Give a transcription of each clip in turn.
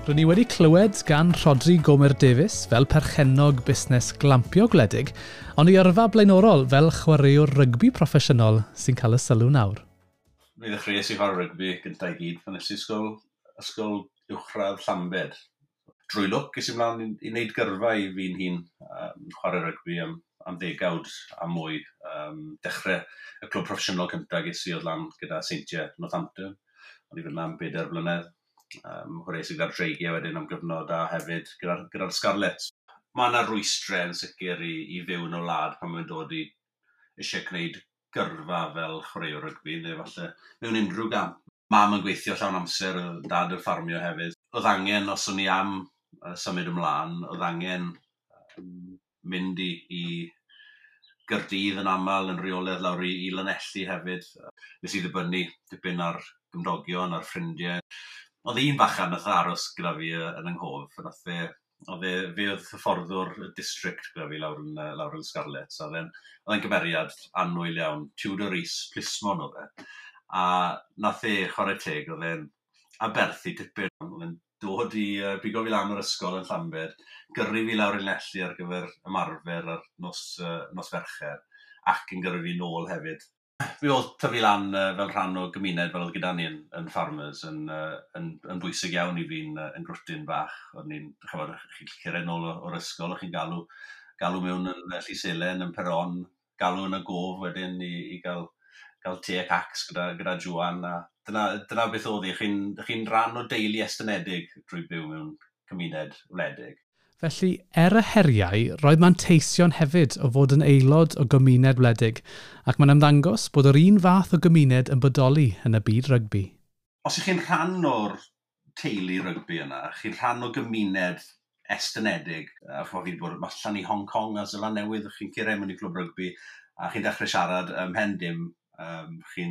Rydyn ni wedi clywed gan Rhodri Gomer Davies fel perchennog busnes glampio gwledig, ond ei yrfa blaenorol fel chwaraewr rygbi proffesiynol sy'n cael y sylw nawr. Mi ddechreuais i chwarae rygbi gyntaf i gyd pan es i ysgol, ysgol uwchradd Llambed. Drwy lwc, es i mlaen i wneud gyrfa i fi'n hun, chwarae rygbi am ddegawd a mwy. Dechrau y clwb proffesiynol cyntaf ges i oedd lan gyda Seintiau Northampton. O'n i fyna am 4 blynedd. Chwaraeais i gyda'r Dreigiau wedyn am gyfnod a hefyd gyda'r Scarlets. Mae yna rwystrau yn sicr i fyw yn y wlad pan mae'n dod i eisiau gwneud gyrfa fel chwaraewr rygbi, neu falle mewn unrhyw gamp. Mam yn gweithio llawn amser, dad yn ffarmio hefyd. Oedd angen, os o'n i am symud ymlaen, oedd angen mynd i Gaerdydd yn aml, yn rheolaidd lawr i Lanelli hefyd. Nes i ddibynnu dipyn ar gymdogion, ar ffrindiau. Oedd un fachan nath aros gyda fi yn yng nghof, nath fe, oedd e, fe oedd hyfforddwr y district gyda fi lawr yn Scarlets, a oedd e'n gymeriad annwyl iawn, Tudor Rees, plismon oedd e. A nath e chwarae teg, oedd e'n aberthu tipyn, oedd e'n dod i bigo fi lan o'r ysgol yn Llambed, gyrru fi lawr i Lanelli ar gyfer ymarfer ar nos Fercher, ac yn gyrru fi nôl hefyd. Fi oedd tyfu lan fel rhan o gymuned fel oedd gyda ni yn farmers yn bwysig iawn i fi'n yn grwtyn bach. O'n i'n, ch'mod, chi'n cyrraedd nôl o'r ysgol, o'ch chi'n galw mewn yn Llys Elen, yn Peron, galw yn y gof wedyn i gael te ac acs gyda Joan. A dyna beth oedd hi. Chi'n rhan o deulu estynedig drwy byw mewn cymuned wledig. Felly, er y heriau, roedd manteision hefyd o fod yn aelod o gymuned wledig, ac mae'n ymddangos bod yr un fath o gymuned yn bodoli yn y byd rygbi. Os ych chi'n rhan o'r teulu rygbi yna, chi'n rhan o gymuned estynedig, a ch'mod, fi 'di bod allan i Hong Kong a Seland Newydd, chi'n cyrraedd mewn i clwb rygbi, a chi'n dechrau siarad ym mhen dim, chi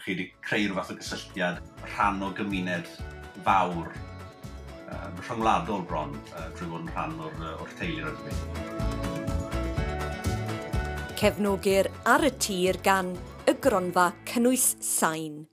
wedi creu rhyw fath o gysylltiad, rhan o gymuned fawr, rhyngwladol bron, drwy fod yn rhan o'r teulu rygbi. Cefnogir Ar y Tir gan y Gronfa Cynnwys Sain.